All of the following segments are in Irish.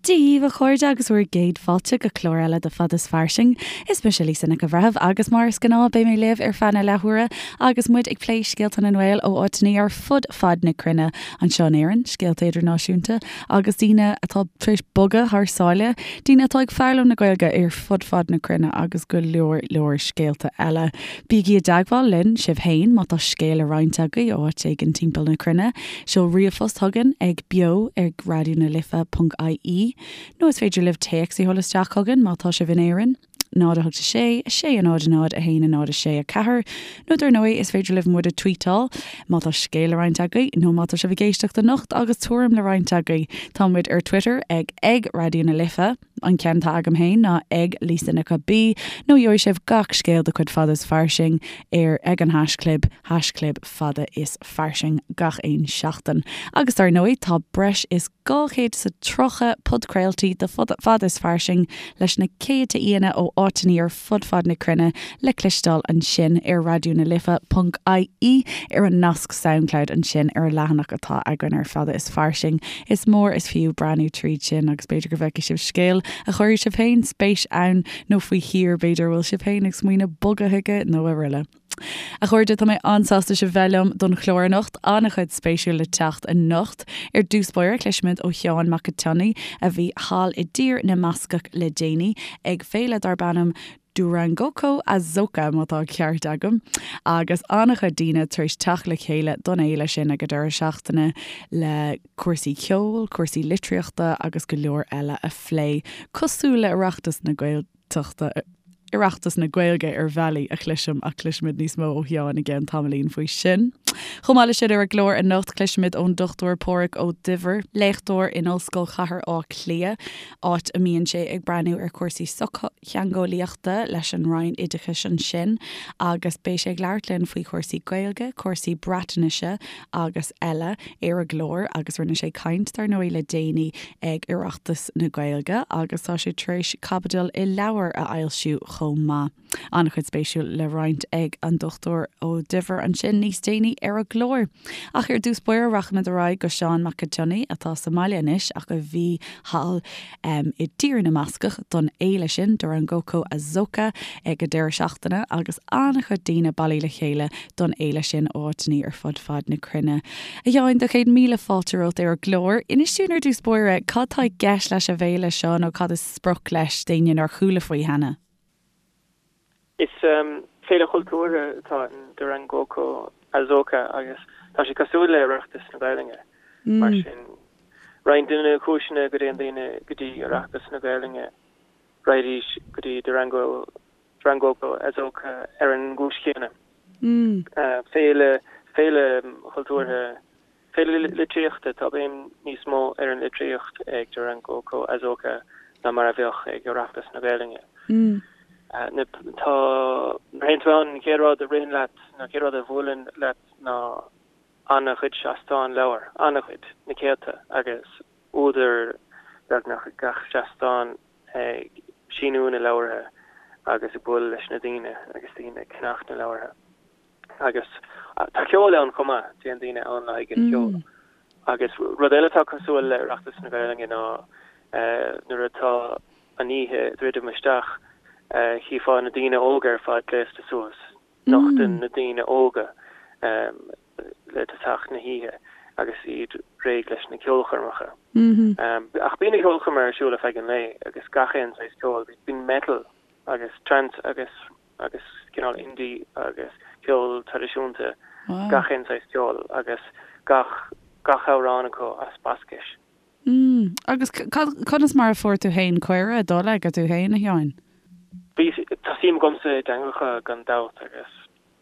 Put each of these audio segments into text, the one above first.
Dia dhaoibh a chairde agus bhur gcéad fáilte go clár eile de Fada is Fairsing. Is mise Lisa Nic an Bhreithimh agus mar is gnáth beidh mé libh ar feadh na leathuaire agus muid ag plé scéalta na nGael ó áiteanna ar fud fad na cruinne anseo in Éirinn, scéalta idirnáisiúnta agus daoine atá tar éis bogadh thar sáile, daoine atá ag foghlaim na Gaeilge ar fud fad na cruinne agus go leor leor scéalta eile. Bígí i dteagmháil linn sibh féin má tá scéal le roinnt agaibh ó áit éigin timpeall na cruinne. Seol ríomhphost chugainn ag beo ag raidió na life ponc ie nó is féidir libh téacs a sheoladh isteach chugainn má tá sibh in Éirinn. 0 8 6 6 0 0 1 0 6 4 Nó dar ndóigh is féidir libh muid a tweetáil má tá scéal le roinnt agaibh nó má tá sibh ag éisteacht anocht agus tuairim le roinnt agaibh. Tá muid ar Twitter ag ag Raidió na Life, an ceann atá agam féin ná ag Lisa Nic B nó gheobhaidh sibh gach scéal de chuid Fada is Fairsing ar ag an haischlib, haischlib Fada is Fairsing gach aon seachtain. Agus dar ndóigh tá breis is 230 podchraoltaí de Fada is Fairsing leis na céadta aíonna ó áiteanna ar fud fad na cruinne le cloisteáil ansin ar Raidió na Life ponc ie ar an nasc Soundcloud ansin ar an leathanach atá againn ar Fada is Fairsing. Is mór is fiú breathnú tríd sin agus b'fhéidir go bhfeicfidh sibh scéal a chuirfidh sibh féin spéis ann nó faoi thír b'fhéidir a bhfuil sibh féin ag smaoineamh bogadh chuige nó araile. A chairde, tá mé an-sásta sibh bheith liom don chlár anocht. An-chuid spéisiúil le teacht anocht. Ar dtús báire, cloisfimid ó Sheán Mac an tSionnaigh, a bhí thall i dTír na mBascach le déanaí, ag féile darb ainm Durangoko Azoka, má tá an ceart agam, agus an-chuid daoine tar éis teacht le chéile don fhéile sin ag an deireadh seachtaine le cúrsaí ceoil, cúrsaí litríochta agus go leor eile a phlé, cosúil le Oireachtas na Gaeltachta. Oireachtas na Gaeilge ar bhealaí a chloisim ach cloisfimid níos mó ó Sheán i gceann tamaillín faoi sin. Chomh maith leis sin ar an gclár anocht cloisfimid ón Dr Páraic Ó Duibhir, léachtóir in Ollscoil Chathair Átha Cliath, áit a mbíonn sé ag breathnú ar chúrsaí sochtheangeolaíochta leis an Roinn Oideachais ansin agus beidh sé ag labhairt linn faoi chúrsaí Gaeilge, cúrsaí Breatnaise agus eile ar an gclár agus rinne sé caint dar ndóigh le déanaí ag Oireachtas na Gaeilge agus tá sé tar éis caibidil i leabhar a fhoilsiú chomh maith. An-chuid spéisiúil le roinnt ag an Dr Ó Duibhir ansin níos déanaí ar an gclár. Ach ar dtús báire rachaimid ar aghaidh go Seán Mac an tSionnaigh atá sa mbaile anois ach a bhí thall i dTír na mBascach don fhéile sin, Durangoko Azoka, ag an deireadh seachtaine agus an-chuid daoine bailithe le chéile don fhéile sin ó áiteanna ar fud fad na cruinne. A Sheáin, do chéad míle fáilte romhat ar an gclár. Inis dúinn ar dtús báire, cad tá i gceist leis an bhféile seo nó cad is sprioc leis d'éinne nár chuala faoi cheana? Is féile chultúrtha atá in Durangoko Azoka agus tá sé cosúil le Oireachtas na Gaelainne. Mar sin, roinnt de na cúiseanna go dtéann daoine go dtí Oireachtas na Gaelainne, raghaidís go dtí Durango Durangoko Azoka ar an gcúis chéanna. Féile, féile chultúrtha, féile litríochta, tá béim níos mó ar an litríocht ag Durangoko Azoka ná mar a bheadh ag Oireachtas na Gaelainne. Tá, nuair a théann tú ann, an chéad rud a ritheann leat, nó an chéad rud a bhuaileann leat ná an-chuid seastán leabhar, an-chuid, na céadta, agus údair beagnach ag gach seastán. ag síniú na leabhartha agus ag bualadh leis na daoine agus daoine ag ceannach na leabhartha. Agus tá ceol ann chomh maith, téann daoine ann le haghaidh an cheoil. Agus rud eile atá cosúil le Oireachtas na Gaelainne ná nuair atá an oíche ag druidim isteach, chífeá na daoine óga ar fad gléasta suas. Nochtann na daoine óga le tosach na hoíche agus iad réidh leis na ceolchoirmeacha. Ach bíonn na ceolchoirmeacha ar siúl ar feadh an lae agus gach aon saghas ceoil. Bíonn metal agus trance agus agus cineál indie agus ceol traidisiúnta, gach aon saghas ceoil agus gach gach amhrán acu as Bascais. Agus conas mar a fuair tú féin cuireadh dul aige tú féin, a Sheáin? Bhí, tá suim agamsa i dteangacha gan dabht agus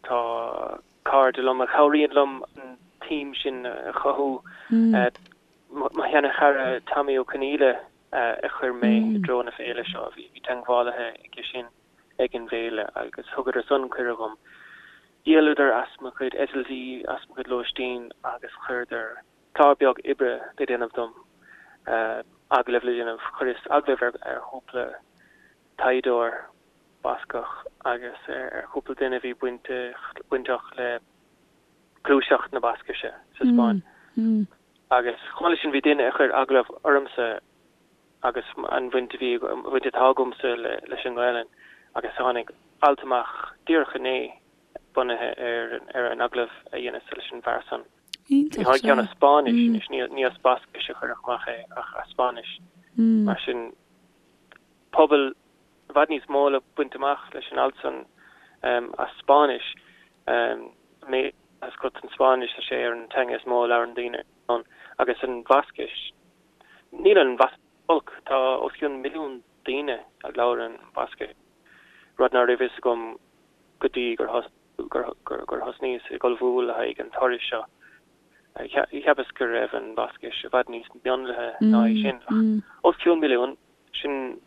tá cairde liom a chabhraíonn liom an tsuim sin a chothú. Mo sheana-chara Tommy Ó Conghaile a chuir mé i dtreo na féile seo, bhí teagmhálaithe aige sin ag an bhféile agus thugadar san cuireadh dhom. Dhíoladar as mo chuid eitiltí, as mo chuid lóistín agus chuireadar clár beag oibre le déanamh dom, agallamh le déanamh. Chuireas agallamh ar chúpla taighdeoir Bascach agus ar chúpla duine a bhí bainteach le gluaiseacht na Bascaise sa Spáinn. Agus chomh maith leis sin bhí duine a chuir agallamh ormsa. agus an bhaint a bhí, an bhaint atá agamsa leis an nGaelainn agus tháinig alt amach díreach inné bunaithe ar ar an agallamh a dheineas leis an bhfear san. Iontach, Tháinig ceann as Spáinnis anois, ní ní as Bascais a cuireadh amach é ach as Spáinnis. Mar sin pobal i bhfad níos mó le baint amach leis an alt san as Spáinnis. Mé as go an Spáinnis, tá sé ar an teanga is mó a labhrann daoine ann agus an Bhascais. Níl an Bhascais olc, tá os cionn milliún daoine a labhrann Bascais, rud ná raibh fhios agam go dtí gur gur thosnaíos ag ullmhú le haghaidh an turais seo. Cheapas go raibh an Bhascais i bhfad níos mionlaithe ná é sin, ach os cionn milliún, sin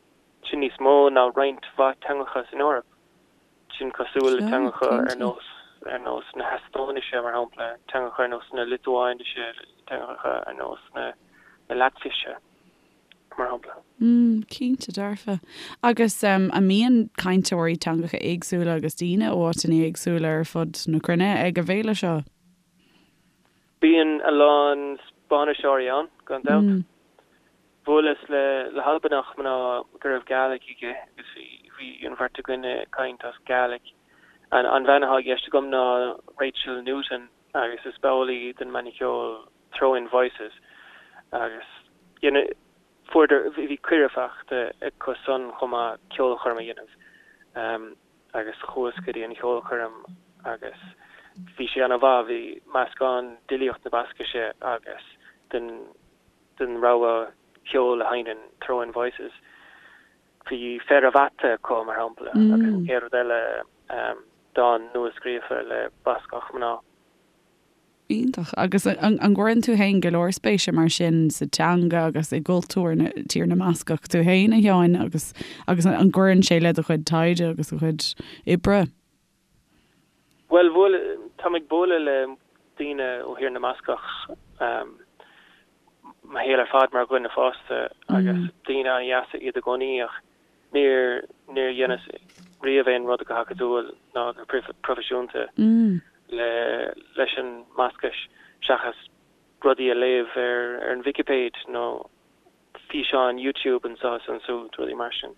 sin níos mó ná roinnt mhaith teangacha san Eoraip. Sin cosúil le teangacha ar nós ar nós na hEastóinise, mar shampla, teangacha ar nós na Liotuáinise, teangacha ar nós na Laitvise, mar shampla. Mm, cinnte dearfa. Agus an mbíonn cainteoirí teangacha éagsúla agus daoine ó áiteanna éagsúla ar fud na cruinne ag an bhféile seo? Bíonn a lán Spáinniseoirí ann, gan dabht. Bhuaileas le le hAlbanach mná go raibh Gàidhlig aige agus bhí bhí an bheirt againn ag caint as Gàidhlig. An an bhean atá i gceist agam ná Rachel Newton agus is ball í den mbanna ceoil Throwing Voices agus you know fuaireadar bhí cuireadh faighte acu san chomh maith ceolchoirm a dhéanamh agus chuas go dtí an cheolchoirm agus bhí sé ana mhaith, bhí meascán d'fhilíocht na Bascaise agus den den rogha ceoil a sheinneann Throwing Voices. Bhí Fear a' Bhata acu, mar shampla, agus an chéad rud eile, dán nua-scríofa le Bascach mná. Iontach. Agus an gcuireann tú féin go leor spéise mar sin sa teanga agus i gcultúr na Tír na mBascach tú féin, a Sheáin, agus agus an gcuireann sé le do chuid taighde agus do chuid oibre? Bhuel, bhuail, táim ag bualadh le daoine ó Thír na mBascach mo shaol ar fad mar dhuine fásta agus daoine an-dheasa iad i gcónaí ach níor, níor dheineas riamh aon rud go hacadúil ná go proifisiúnta le, leis an mBascais seachas rudaí a léamh ar, ar an Vicipéid nó físeáin YouTube anseo is ansúd, rudaí mar sin,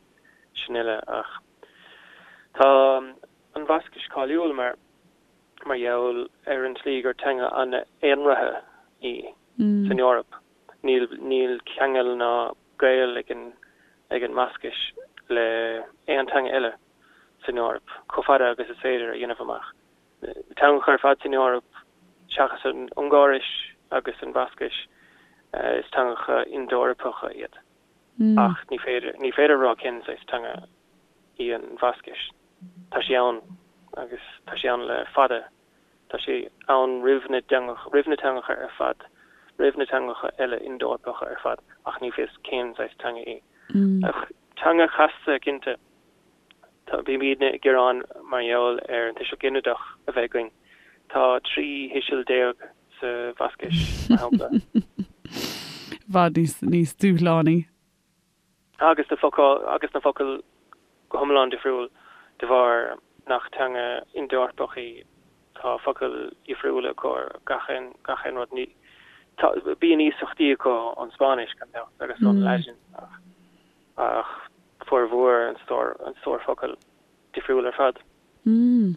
sin uile ach tá an Bhascais cáiliúil mar mar gheall ar an tslí gur teanga an-aonraithe í san Eoraip. Níl níl ceangal ná gaol ag an ag an mBascais le aon teanga eile san Eoraip, chomh fada agus is féidir a dhéanamh amach. Na teangacha ar fad san Eoraip, seachas an Ungáiris agus an Bhascais, is teangacha Ind-Eorpacha iad. Ach ní féidir, ní féidir a rá cén saghas teanga í an Bhascais. Tá sí ann agus tá sí ann le fada. Tá sí ann roimh na dteangacha, roimh na teangacha ar fad, roimh na teangacha eile Ind-Eorpacha ar fad, ach ní fios cén saghas teanga í. Ach teanga chasta, cinnte. Tá, bímidne ag gearán mar gheall ar an tuiseal ginideach a bheith againn. Tá 13 thuiseal sa Bhascais, mar shampla. I bhfad níos, níos dúshlánaí. Agus na focail, agus na focail go hiomlán difriúil de bharr nach teanga Ind-Eorpach í. Tá focail dhifriúla acu ar gach aon, gach aon rud. Ní, tá, bíonn iasachtaí acu ón Spáinnis, gan dabht, agus ón Laidin ach. ach formhór an stór, an stór focal difriúil ar fad. Mm.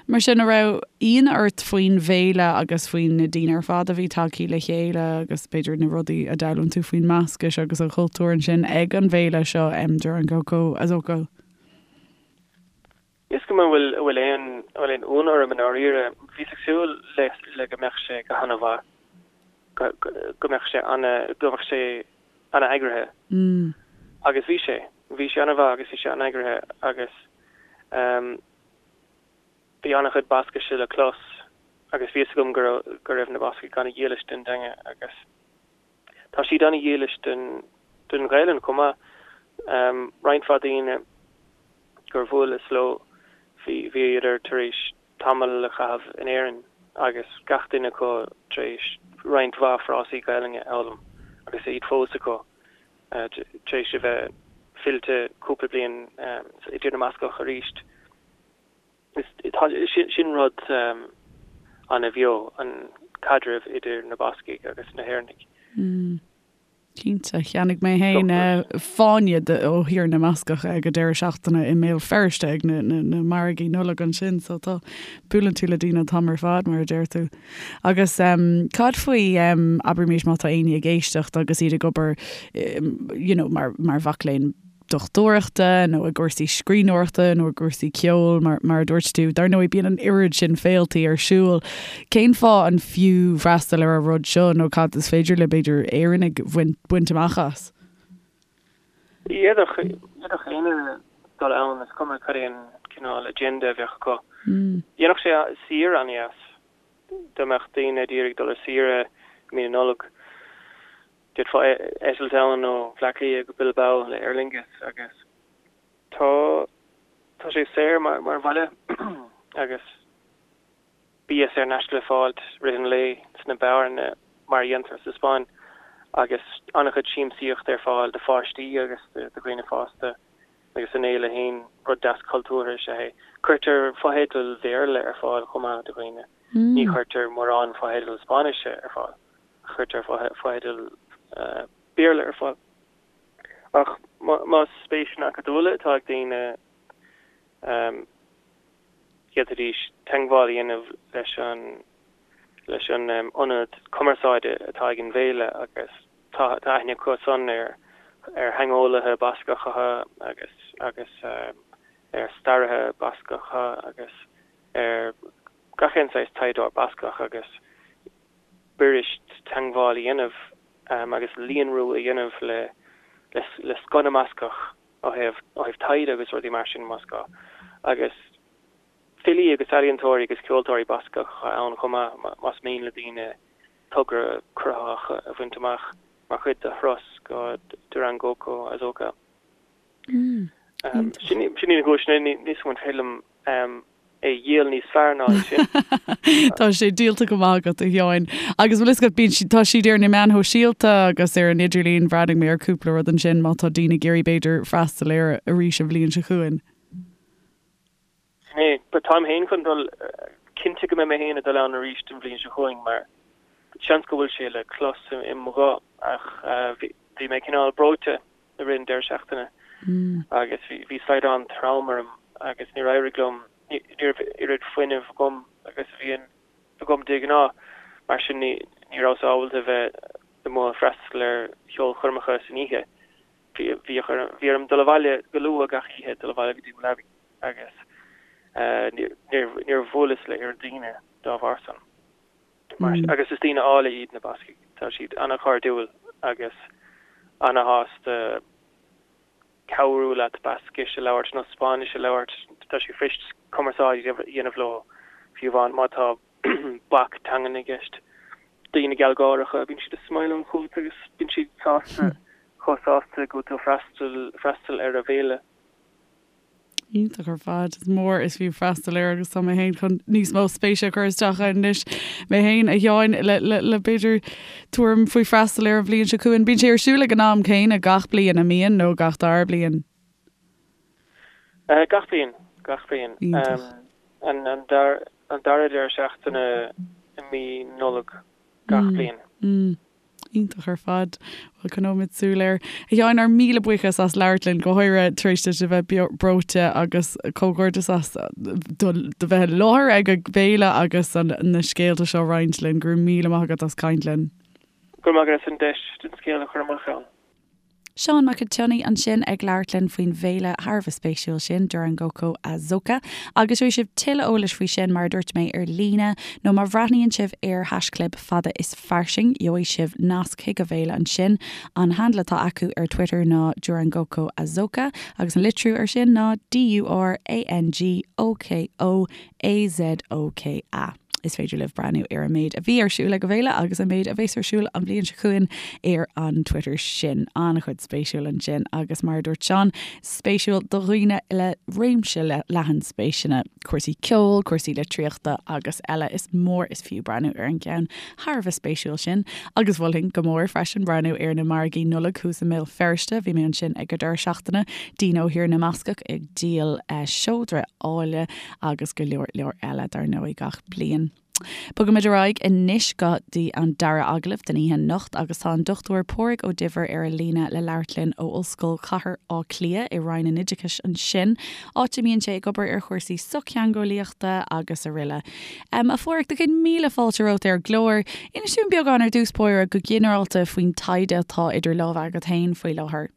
Mar sin, an raibh ionadh ort faoin bhféile agus faoi na daoine ar fad a bhí tagthaí le chéile agus b'fhéidir na rudaí a d'fhoghlaim tú faoin mBascais agus an chultúr ansin ag an bhféile seo, Durangoko Azoka? Is cuma an bhfuil, an bhfuil aon, an bhfuil aon ionadh orm i ndáiríre. Bhíos ag súil le, le go mbeadh sé go han-mhaith, go, go mbeadh sé ana, go mbeadh sé ana-eagraithe. Agus bhí sé. Bhí sé ana-mhaith agus bhí sé an-eagraithe agus bhí an-chuid Bascaise le clos agus bhí fhios agam go raibh, go raibh na Bascaigh ana-dhílis don dteanga agus tá siad ana-dhílis don, don Ghaelainn chomh maith. Roinnt mhaith daoine gur bhuaileas leo, bhí, bhíodar tar éis tamall a chaitheamh in Éirinn agus gach duine acu tar éis roinnt mhaith frásaí Gaelainne a fhoghlaim agus iad fós acu tar éis a bheith fillte cúpla bliain i dTír na mBascach arís. Sin rud ana-bheo, an caidreamh idir na Bascaigh agus na hÉireannaigh. Cinnte. Cheannaigh mé féin fáinne ó Thír na mBascach ag an deireadh seachtaine i mBéal Feirste ag na margaí Nollag ansin, so tá, buaileann tú le daoine an t-am ar fad, mar a deir tú. Agus cad faoi, abraimis má tá éinne ag éisteacht agus iad ag obair you know mar mhac léinn dochtúireachta nó i gcúrsaí scríbhneoireachta nó i gcúrsaí ceoil, mar mar a dúirt tú. Dar ndóigh, bíonn an oiread sin féiltí ar siúl. Cén fáth an fiú freastal ar an rud seo nó cad is féidir le, b'fhéidir, Éireannaigh bhaint baint amach as? D'fhéadfadh éinne dul ann, is cuma cad é an cineál agenda a bheadh acu. Dhéanfadh sé saoire an-dheas dá mbeadh daoine ag iarraidh dul ar saoire i mí na Nollag. D'fhéadfá eitilt ann ó Bhleá Cliath go Bilbao le Aer Lingus agus tá tá sé saor mar mar bhaile agus bia saor in aisce le fáil i rith an lae sna beáranna mar a dhéantar sa Spáinn agus an-chuid siamsaíochta ar fáil do pháistí agus do dhaoine fásta agus an fhéile féin, rud deas cultúrtha is ea é. Cuirtear fotheidil Bhéarla ar fáil chomh maith do dhaoine. Ní chuirtear mórán fotheidil Spáinnise ar fáil. Cuirtear fotheidil Béarla ar fáil. Ach más spéiseanna acadúla atá ag daoine, d'fhéadfaidís teagmháil a dhéanamh leis an leis an ionad cumarsáide atá ag an bhféile agus tá aithne acu san ar ar theangeolaithe Bascacha agus agus ar staraithe Bascacha agus ar gach aon saghas taighdeoir Bascach agus b'fhuirist teagmháil a dhéanamh agus líonrú a dhéanamh le le scoth na mBascach ó thaobh ó thaobh taighde agus rudaí mar sin más gá. Agus filí agus ealaíontóirí agus ceoltóirí Bascacha ann chomh maith más mian le daoine togra cruthaitheach a bhaint amach mar chuid de thuras go Durangoko Azoka. Sin iad na cúiseanna, níl a fhios agam an féidir liom é a dhíol níos fearr ná é sin. Tá sé díolta go maith agat, a Sheáin. Agus bhfuil fhios agat, bíonn siad, tá siad ar na meáin shóisialta agus ar an idirlíon, bhreathnaigh mé ar cúpla rud ansin má tá daoine ag iarraidh b'fhéidir freastal air arís an bhliain seo chugainn. Sin é. But táim féin chun dul, cinnte go mbeidh mé féin ag dul ann arís an bhliain seo chugainn mar seans go bhfuil sé le clos i mo ghuth ach bhí mé cineál breoite i rith an deireadh seachtaine agus bhí slaghdán trom orm agus níor éirigh liom, ní raibh oiread fuinnimh agam agus a bhíonn agam de ghnáth, mar sin ní rabhas ábalta a bheith amuigh ag freastal ar cheolchoirmeacha san oíche. Bhí orm dul abhaile go luath gach oíche, dul abhaile go dtí mo leabaidh agus níor bhuaileas le oiread daoine dá bharr san. Agus is daoine áille iad na Bascaigh. Tá siad an-chairdiúil agus an-shásta cabhrú leat Bascais a labhairt nó Spáinnis a labhairt. Tá sé fuirist cumarsáid a dhéanamh leo, fiú amháin má tá bac teangan i gceist. Daoine gealgháireacha, bíonn siad ag smileáil chugat agus bíonn siad sásta, chomh sásta go bhfuil tú ag freastal ar a bhféile. Iontach ar fad. Is mór is fiú freastal air agus tá mé féin chun níos mó spéise a chur isteach ann anois mé féin, a Sheáin, le, le, le b'fhéidir tuairim faoi freastal air an bhliain seo chugainn. Bíonn sé ar siúl ag an am céanna gach bliain, an mbíonn, nó gach dara bliain? Uh, gach bliain, gach bliain. Um, an, an, dar, an dara deireadh seachtaine i mí Nollag gach mm. bliain. Mm. Iontach ar fad. Bhuel, coinneoimid súil air. A Sheáin, ár míle buíochas as labhairt linn, go háirithe tar éis duit a bheith breoite agus comhghairdeas as do bheith i láthair ag an bhféile agus na scéalta seo a roinnt linn. Go raibh míle maith agat as caint linn. Go raibh maith agat as an deis an scéal a chur amach ann. Seán Mac an tSionnaigh ansin ag labhairt linn faoin bhféile thar a bheith spéisiúil sin, Durangoko Azoka. Agus gheobhaidh sibh tuilleadh eolais faoi sin, mar a dúirt mé, ar líne, nó má bhreathnaíonn sibh ar haischlib Fada is Fairsing, gheobhaidh sibh nasc chuig an bhféile ansin. An handle atá acu ar Twitter ná Durangoko Azoka, agus an litriú ar sin ná D-U-R-A-N-G-O-K-O AZOKA. Is féidir libh breathnú ar an méid a bhí ar siúl ag an bhféile agus an méid a bheas ar siúl an bhliain seo chugainn ar an Twitter sin. An-chuid spéisiúil ansin agus mar a dúirt Seán, spéisiúil do dhaoine le réimse leathan spéiseanna, cúrsaí ceoil, cúrsaí litríochta agus eile. Is mór is fiú breathnú ar an gceann thar a bheith spéisiúil sin. Agus mholfainn go mór freisin breathnú ar na margaí Nollag thuas i mBéal Feirste. Bhí mé ansin ag an deireadh seachtaine, daoine ó Thír na mBascach ag díol seodra áille agus go leor leor eile dar ndóigh gach bliain. Bogaimid ar aghaidh anois go dtí an dara agallamh den oíche anocht agus tá an Dr Pádraig Ó Duibhir ar an líne le labhairt linn ó Ollscoil Chathair Átha Cliath i Roinn an Oideachais ansin, áit a mbíonn sé ag obair ar chúrsaí sochtheangeolaíochta agus aroile. A Phádraig, do chéad míle fáilte romhat ar an gclár. Inis dúinn beagán ar dtús báire go ginearálta faoin taighde atá idir lámha agat féin faoi láthair.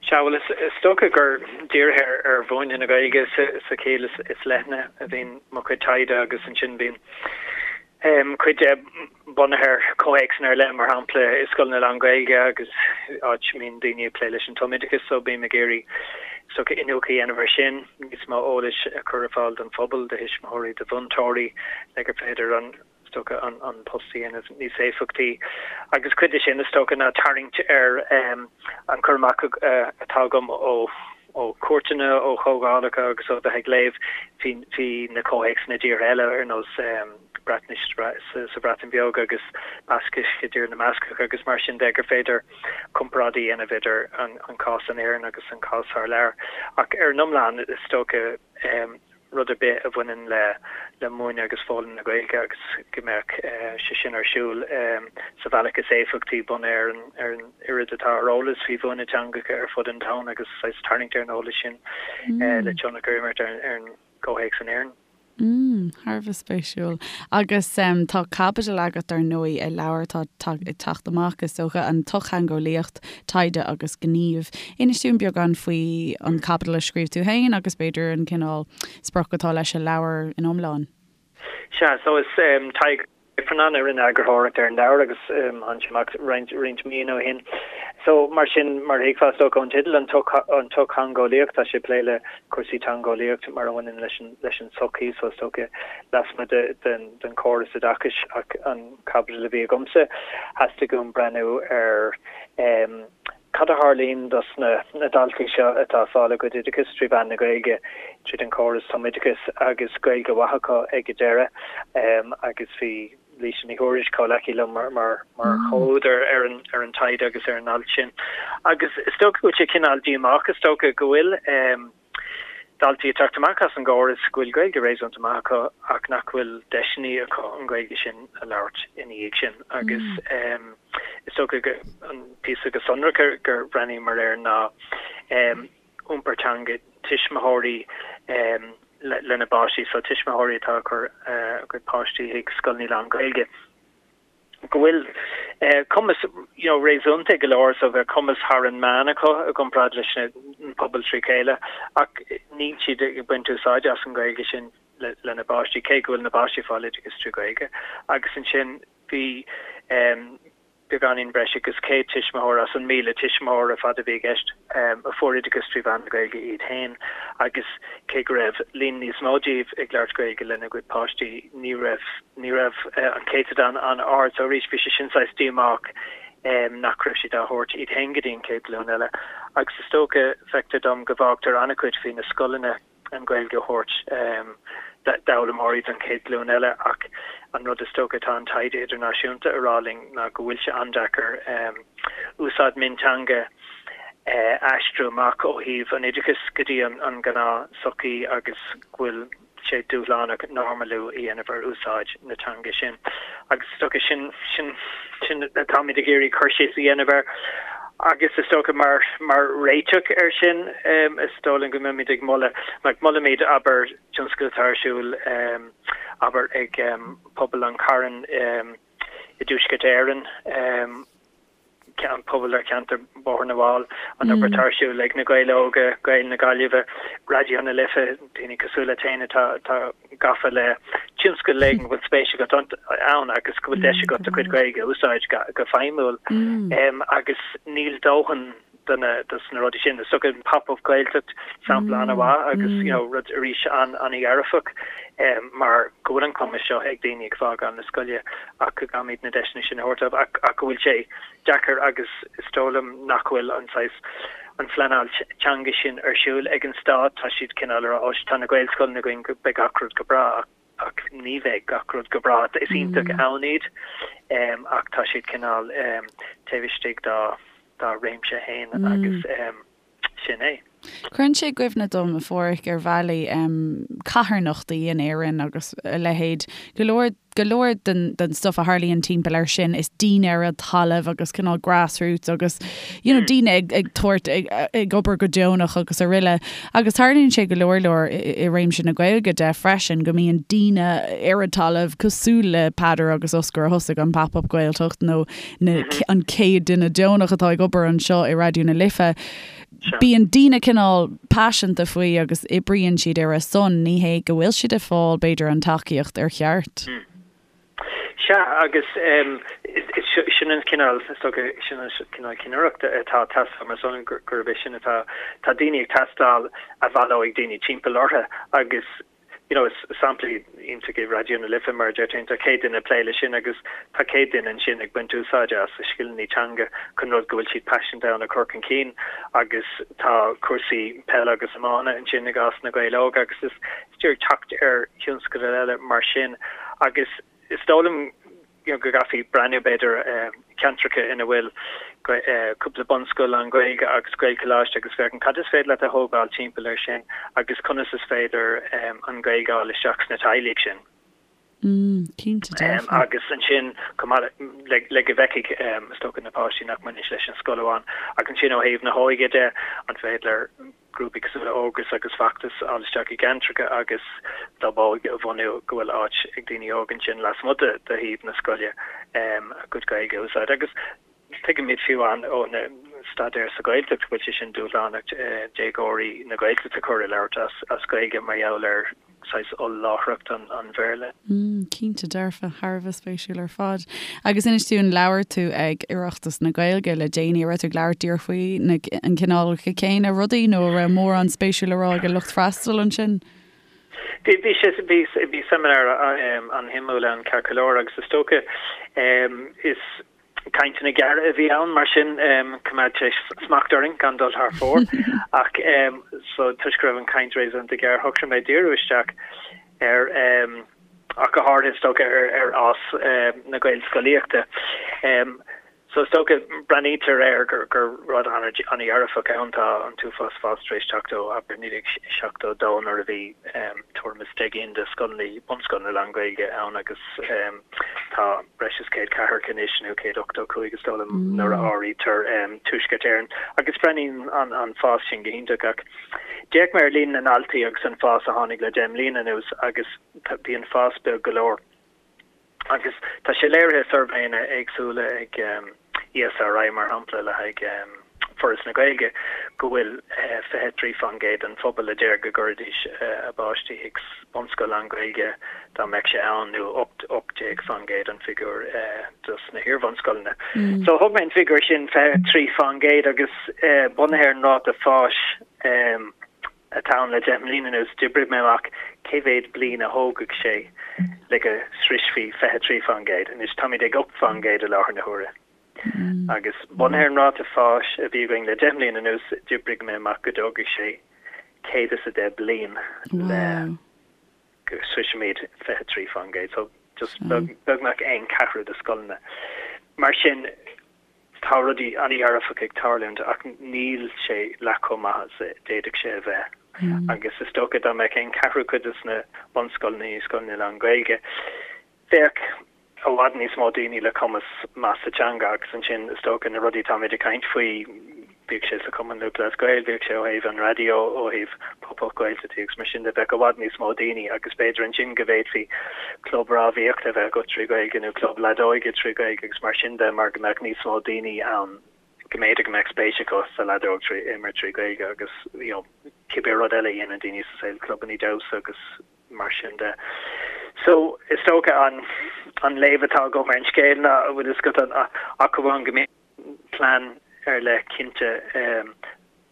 Sea, bhuel, is dócha gur dírithe ar mhúineadh na Gaeilge sa chiall is leithne a bhíonn mo chuid taighde agus ansin bíonn cuid de bunaithe ar chomhthéacsanna ar leith, mar shampla i scoileanna lán-Ghaeilge agus áit a mbíonn daoine ag plé leis an tumoideachas, so bím ag iarraidh is dócha iniúchadh a dhéanamh air sin, níos mó eolais a chur ar fáil don phobal, do thuismitheoirí, do mhúinteoirí le gur féidir an. is dócha, an post a dhéanamh níos éifeachtaí. Agus cuid de sin, is dócha, ná tarraingt ar an cur amach atá agam ó chuairteanna, ó chomhdhálacha agus ó bheith ag léamh faoi na comhthéacsanna i dtíortha eile, ar nós Breatnais sa Bhreatain Bheag agus Bascais i dTír na mBascach agus mar sin de, gur féidir comparáid a dhéanamh idir an cás in Éirinn agus an cás thar lear. Ach ar an iomlán, is dócha, rud ar bith a bhaineann le le múineadh agus foghlaim na Gaeilge agus go mbeadh sé sin ar siúl sa bhealach is éifeachtaí bunaithe ar an ar an oiread atá ar eolas faoi mhúineadh teangacha ar fud an domhain agus saghas tarraingt ar an eolas sin le tionchar a imirt ar an gcomhthéacs in Éirinn. Mm, thar a bheith spéisiúil. Agus tá caibidil agat, ar ndóigh, i leabhar atá ag teacht amach, is dócha, An tSochtheangeolaíocht, Taighde agus Gníomh. Inis dúinn beagán faoi an chaibidil a scríobh tú féin agus b'fhéidir an cineál sprioc atá leis an leabhar in iomlán. Sea, so is Tadhg Ifearnáin a rinne eagarthóireacht ar an leabhar agus tháinig sé amach roinnt roinnt míonna ó shin. So mar sin, mar a thuigfeá is dócha ón teideal, an tsochtheangeolaíocht, tá sé ag plé le cúrsaí teangeolaíocht mar a bhaineann leis an leis an tsochaí, so is dócha lasmuigh de den den chóras oideachais ach an chaibidil a bhí agamsa, theastaigh uaim breathnú ar cad a tharlaíonn dos na daltaí seo atá ag fáil a gcuid oideachais trí mheán na Gaeilge, tríd an chóras tumoideachais, agus Gaeilge mhaith acu ag an deireadh. Agus bhí Laoise Ní Thuairisg, comhleacaí liom, mar chomhúdar ar an taighde agus ar an alt sin. Agus is dócha go bhfuil sé cineál díomách, is dócha, go bhfuil. daltaí ag teacht amach as an gcóras go bhfuil Gaeilge réasúnta maith acu ach nach bhfuil deiseanna acu an Ghaeilge sin a labhairt ina dhiaidh sin agus is dócha go an píosa go sonrach gur bhreathnaíomar air ná iompar teanga tuismitheoirí lena bpáistí, so tuismitheoirí atá ag cur a gcuid páistí chuig scoileanna lán-Ghaeilge. go bhfuil cumas you know réasúnta go leor so bheadh cumas thar an meán acu i gcomparáid leis an pobal trí chéile ach níl siad ag baint úsáide as an Ghaeilge sin lena bpáistí cé go bhfuil na páistí ag fáil oideachas trí Ghaeilge agus ansin bhí beagáinín breis agus 100 tuismitheoir as an 1,000 tuismitheoir ar fad a bhí i gceist a fuair oideachas trí mheán na Gaeilge iad féin agus cé go raibh líon níos mó díobh ag labhairt Gaeilge lena gcuid páistí ní raibh Ní raibh an céatadán an-ard so arís bhí sé sin saghas díomách nach raibh siad á thabhairt iad féin go dtí an chéad ghlúin eile. Agus is dócha, feictear dom go bhfágtar an-chuid faoi na scoileanna an Ghaeilge a thabhairt d'fhoghlaimeoirí don chéad ghlúin eile ach an rud is dócha atá an taighde idirnáisiúnta a rá linn ná go bhfuil sé an-deacair úsáid mionteanga a aistriú amach ó thaobh an oideachais go dtí an ghnáth-sochaí agus go bhfuil sé dúshlánach normalú a dhéanamh ar úsáid na teanga sin. Agus is dócha sin, sin, sin atáimid ag iarraidh cur síos a dhéanamh air. Agus is dócha mar, mar réiteach air sin, is dóigh liom go mbeimid ag moladh, like molaimid, abair, tionscadal atá ar siúl, abair, ag pobal an Chairn i dTuaisceart Éireann, an pobal ar cheantar Bhóthar na bhFál, an obair atá ar siúl ag Na Gaeil Óga, Gaeil na Gaillimhe, Raidió na Life, daoine cosúil leat féin atá atá gafa le tionscal éigin go bhfuil spéis agat ann agus go bhfuil deis agat do chuid Gaeilge a úsáid go feidhmiúil. Agus níl dóthain de na dos na rudaí sin. Is dócha an Pop Up Gaeltacht sampla an-mhaith agus you know rud arís an-dhearfach mar go bhfuil an cumas seo ag daoine ag fágáil na scoile ach go gcaithfimid na deiseanna sin a thabhairt dóibh ach ach go bhfuil sé deacair agus is dóigh liom nach bhfuil an saghas an phleanáil teanga sin ar siúl ag an stát. Tá siad cineál ag rá ó tá na Gaelscoileanna againn go beidh gach rud go breá ach ach ní bheidh gach rud go breá. Is iontach ann iad ach tá siad cineál taobh istigh dá dá réimse féin agus sin é. Cuireann sé i gcuimhne dom, a Pháraic, ar bhealaí, carthanachtaí in Éirinn agus a leithéid. Go leor, go leor den, den stuff a tharlaíonn timpeall air sin, is daoine ar an talamh agus cineál grassroots agus, you know, daoine ag, ag tabhairt, ag, ag obair go deonach agus araile. Agus tarlaíonn sé go leor leor i, i réimse na Gaeilge de freisin, go mbíonn daoine ar an talamh cosúil le Peadar agus Oscar a thosaigh an Pop-Up Gaeltacht nó na, an chéad duine deonach atá ag obair anseo i Raidió na Life. Bíonn daoine cineál paiseanta faoi agus oibríonn siad ar a son, ní hé go bhfuil siad ag fáil, b'fhéidir, an tacaíocht ar cheart. Sea, agus sin an cineál, is dócha, sin an cineál cinnireachta atá ag teastáil mar sin, gurb é sin atá, tá daoine ag teastáil a bhaileoidh daoine timpeall orthu agus you know, is sampla iontach é Raidió na Life mar a deir tú, tá 100 duine ag plé leis sin agus tá 100 duine ansin ag baint úsáide as a scileanna teanga chun rud go bhfuil siad paiseanta ann a chur chun cinn agus tá cúrsaí peile agus iomána ansin i gcás na Gaeil Óga agus is díreach teacht ar thionscadail eile mar sin agus is dóigh liom you know, go gcaithfí breathnú b'fhéidir ceantracha ina bhfuil cúpla bunscoil lán-Ghaeilge agus Gaelcholáiste agus féachaint cad is féidir leat a thógáil timpeall air sin agus conas is féidir an Ghaeilge a fháil isteach sna teaghlaigh sin. Mm, cinnte dearfa. Agus ansin chomh maith le le go bhfeicfidh is dócha na páistí nach mbaineann sé leis an scoil amháin. Ach ansin ó thaobh na hóige de, an féidir grúpaí cosúil le Ógras agus Feachtas a fháil isteach i gceantracha agus club óige a bhunú go bhfuil áit ag daoine óga ansin lasmuigh de shuíomh na scoile a gcuid Gaeilge a úsáid. Agus tuigimid fiú amháin ó na staidéir sa Ghaeltacht go bhfuil sé sin dúshlánach déagóirí na Gaeltachta a chur ag labhairt as Gaeilge mar gheall ar saghas oll-láithreacht an Bhéarla. Mm, cinnte dearfa, thar a bheith spéisiúil ar fad. Agus inis dúinn, labhair tú ag Oireachtas na Gaeilge le déanaí, an raibh tú ag labhairt díreach faoi na, an cineálacha céanna rudaí nó an raibh mórán spéisiúil le rá ag an lucht freastail ansin? Bhí, bhí sé, bhí, bhí seimineár an-shuimiúil ann ceart go leor agus is dócha, is, Cainteanna gearra a bhí ann, mar sin choimeád sé smacht orainn gan dul thar fóir. Ach so toisc go raibh an chaint réasúnta gearr, shocraigh mé díriú isteach ar, ach go háirithe is dócha, ar fhás na Gaelscolaíochta. So is dócha, breathnaítear air gur rud an-dhearfach ann, tá an t-uafás fás tar éis teacht ó, abair, 1972 nuair a bhí tuairim is 10 gcinn de scoileanna, bunscoileanna lán-Ghaeilge ann agus tá breis is 100 ceathracha anois, nó 185 is dóigh liom, nuair a áirítear Tuaisceart Éireann, agus breathnaíonn an fás sin go hiontach. Ach d'fhéach mé ar líon na ndaltaí agus an fás a tháinig le 10 mbliana anuas agus bhí an fás beag go leor. Agus tá sé léirithe i suirbhéanna éagsúla ag ESRI, mar shampla, le haghaidh Foras na Gaeilge, go bhfuil 23% den phobal a deir go gcuirfidís a bpáistí chuig bunscoil lán-Ghaeilge dá mbeadh sé ann, nó 18% an figiúr dos na hiar-bhunscoileanna. So thóg mé an figiúr sin, 23%, agus bunaithe ar an ráta fáis atá ann le 10 mbliana anuas, d'oibrigh mé amach cé mhéad bliain a thógfadh sé le go sroisfí 23%. Anois táimid ag 8% i láthair na huaire. Agus bunaithe ar an ráta fáis a bhí againn le 10 mbliana anuas, d'oibrigh mé amach go dtógfaidh sé 110 bliain le go sroisfimid 23%. So just beagnach aon cheathrú de scoileanna. Mar sin, tá rudaí an-dhearfacha ag tarlúint ach níl sé leath chomh maith is a d'fhéadfadh sé a bheith. Agus is dócha dá mbeadh aon cheathrú cuid de na bunscoileanna ina scoileanna lán-Ghaeilge, bheadh i bhfad níos mó daoine le cumas maith sa teanga agus ansin is dócha na rudaí atáimid ag caint faoi, bíodh sé sa Chumann Lúthchleas Gael, bíodh sé ó thaobh an raidió, ó thaobh Pop-Up Gaeltachtaí agus mar sin de, bheadh i bhfad níos mó daoine agus b'fhéidir ansin go bhféadfaí club rámhaíochta a bheith agat trí Ghaeilge nó club leadóige trí Ghaeilge agus mar sin de mar go mbeadh níos mó daoine ann go mb'fhéidir go mbeadh spéis acu sa leadóg trí imirt trí Ghaeilge agus you know cibé rud eile a dhéanann daoine sa saol, clubanna damhsa agus mar sin de. So, is dócha an an léamh atá agam ar an scéal ná, an bhfuil fhios agat, ach amháin go mbíonn plean ar leith cinnte,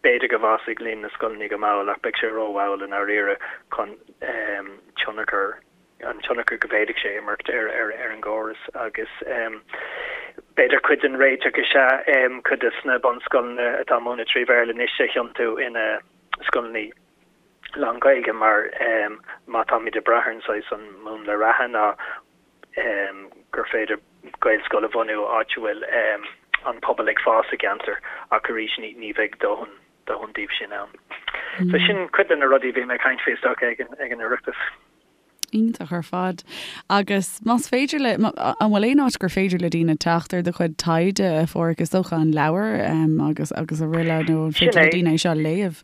b'fhéidir go bhfásfaidh líon na scoileanna go mall ach beidh sé rómhall i ndáiríre chun tionchar, an tionchar go bhféadfadh sé imirt ar ar an gcóras agus b'fhéidir cuid den réiteach is ea cuid de na bunscoileanna atá ag múineadh trí Bhéarla anois a thiontú ina scoileanna lán-Ghaeilge mar má táimid ag brath ar an saghas an múnla reatha ná gur féidir Gaelscoil a bhunú áit a bhfuil an pobal ag fás i gceantar ach arís ní bheidh dóthain dóthain díobh sin ann. So sin cuid de na rudaí a bhí mé ag caint faoi is dócha ag an ag an Oireachtas. Iontach ar fad. Agus más féidir le, an bhfuil aon áit gur féidir le daoine teacht ar do chuid taighde, a Pháraic, is dócha an leabhar agus agus araile nó an féidir le daoine é seo a léamh?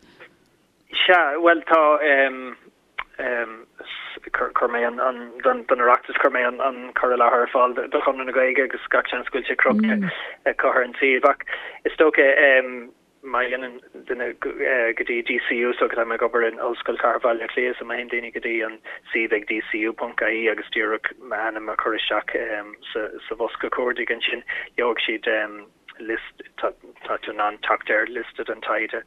Sea, bhuel tá, chuir mé an, don Oireachtas, chuir mé an cur i láthair ar fáil do Chonradh na Gaeilge agus gach seans go bhfuil sé crochta acu ar an suíomh ach is dócha, Má théann duine go dtí DCU, so tá mé ag obair in Ollscoil Chathair Bhaile Átha Cliath, so má théann daoine go dtí an suíomh ag dcu.ie agus díreach m'ainm a chur isteach sa bhosca cuardaigh ansin, gheobhaidh siad liosta, tá tú in ann teacht ar liosta den taighde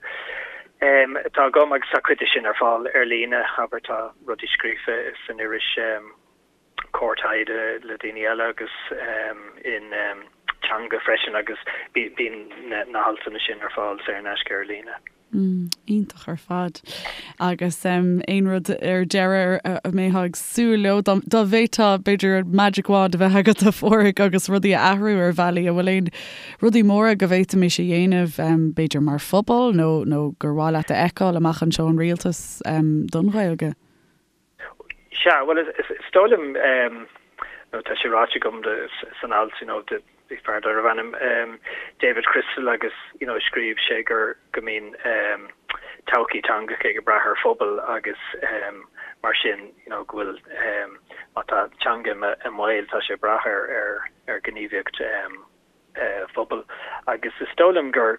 atá agam agus tá cuid de sin ar fáil ar líne, abair tá rudaí scríofa san iris. Comhar Taighde le daoine eile agus in Teanga freisin agus bíonn na haltanna sin ar fáil saor in aisce ar líne. Iontach ar fad. Agus aon rud ar deireadh a mbeifeá ag súil leo, dá bhféadfá b'fhéidir magic wand a bheith agat a Pháraic agus rudaí a athrú ar bhealaí, an bhfuil aon rudaí móra go bhféadfaimis a dhéanamh b'fhéidir mar phobal nó nó gur mhaith leat a fheiceáil amach anseo ón rialtas don Ghaeilge? Sea, bhuel, is dóigh liom, nó tá sé ráite agam san alt, you know, bhí fear darbh ainm David Crystal agus, you know, scríobh sé gur, go mbíonn todhchaí teangacha ag brath ar phobal agus mar sin, you know, go bhfuil, má tá teanga i mbaol, tá sé ag brath ar, ar, ar ghníomhaíocht phobail agus is dóigh liom gur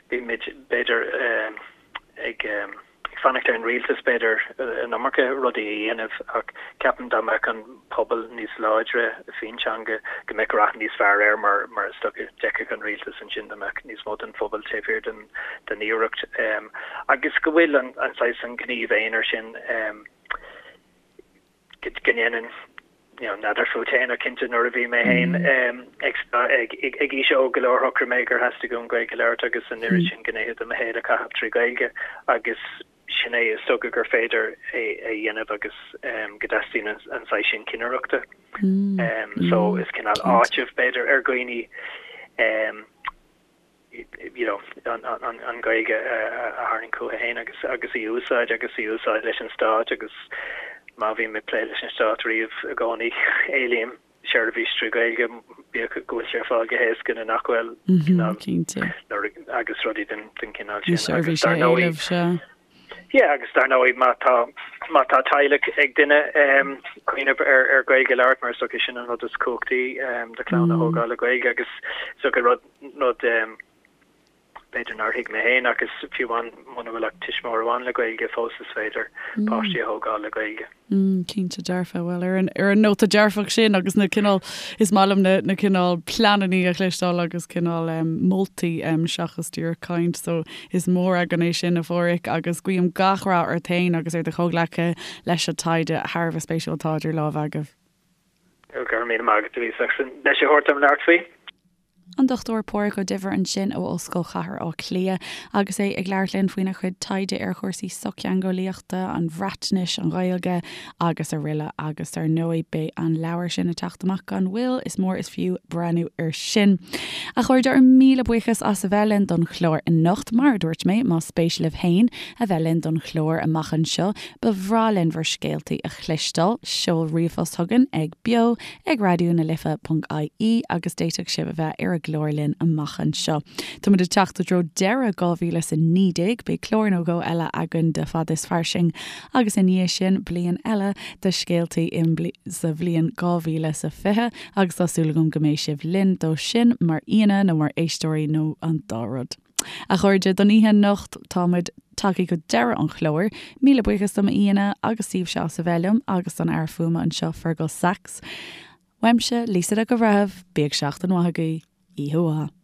bímid b'fhéidir ag fanacht ar an rialtas b'fhéidir an iomarca rudaí a dhéanamh ach ceapaim dá mbeadh an pobal níos láidre faoin teanga go mbeadh rath níos fearr air mar mar is dócha d'fheicfeadh an rialtas ansin dá mbeadh níos mó den phobal taobh thiar den den iarracht agus go bhfuil an an saghas an gníomh aonair sin go ndéanann, you know, n'fheadar fút féin ach cinnte nuair a bhí mé féin ag ag ag aois óg go leor shocraigh mé gur theastaigh uaim Gaeilge a labhairt agus an oiread sin gnéithe de mo shaol a chaitheamh trí Ghaeilge agus sin é is dócha gur féidir é a dhéanamh agus go dteastaíonn an an saghas sin cinnireachta. So is cineál áiteamh b'fhéidir ar dhaoine you know, an Ghaeilge a tharraingt chucu féin agus agus í a úsáid agus í a úsáid leis an stát agus má bhím ag plé leis an stát riamh i gcónaí éilím seirbhís trí Ghaeilge bíodh go bhfuil sé ar fáil go héasca nó nach bhfuil cinnte agus rudaí den den chineál sin agus dar ndóigh Yeah, agus dar ndóigh má tá má tá teaghlach ag duine cuimhneamh ar ar Ghaeilge a labhairt mar is dócha sin an rud is cumhachtaí do chlann a thógáil le Gaeilge agus is dócha rud rud b'fhéidir nár thuig mé féin ach is fiú amháin muna bhfuil ach tuismitheoir amháin le Gaeilge fós is féidir páistí a thógáil le Gaeilge. Mm, cinnte dearfa. Bhuel, ar an, ar an nóta dearfach sin agus na cineál, is maith liom na, na cineál pleanannaí a chloisteáil agus cineál em, moltaí em, seachas díreach caint, so is mór againn é sin a Pháraic agus guím gach rath ort féin agus ar do chomhghleacaithe leis an taighde thar a bheith spéisiúil atá idir lámha agaibh. Go raibh míle maith agat a Lisa as an deis a thabhairt dom labhairt faoi. An Dr Páraic Ó Duibhir ansin ó Ollscoil Chathair Átha Cliath agus é ag labhairt linn faoina chuid taighde ar chúrsaí sochtheangeolaíochta, an Bhreatnais, an Ghaeilge agus araile agus dar ndóigh beidh an leabhar sin ag teacht amach gan mhoill, is mór is fiú breathnú air sin. A chairde, ár míle buíochas as a bheith linn don chlár anocht. Mar a dúirt mé, más spéis libh féin a bheith linn don chlár amach anseo, ba bhreá linn bhur scéaltaí a chloisteáil. Seol ríomhphost chugainn ag beo ag raidió na life ponc ie agus d'fhéadfadh sibh a bheith ar an gclár linn amach anseo. Táimid ag teacht i dtreo deireadh 2019, beidh clár nó dhó eile againn de Fad is Fairsing agus i ndiaidh sin bliain eile de scéaltaí sa bhliain 2020 agus tá súil agam go mbeidh sibh linn dó sin mar aíonna nó mar éisteoirí nó an dá rud. A chairde, don oíche anocht, tá muid tagtha go deireadh an chláir. Míle buíochas do m'aíonna agus daoibhse as a bheith liom agus don fhear fuaime anseo, Fergal Sachs. Uaimse, Lisa Nic an Bhreithimh, bíodh seachtain mhaith agaibh. Oíche mhaith.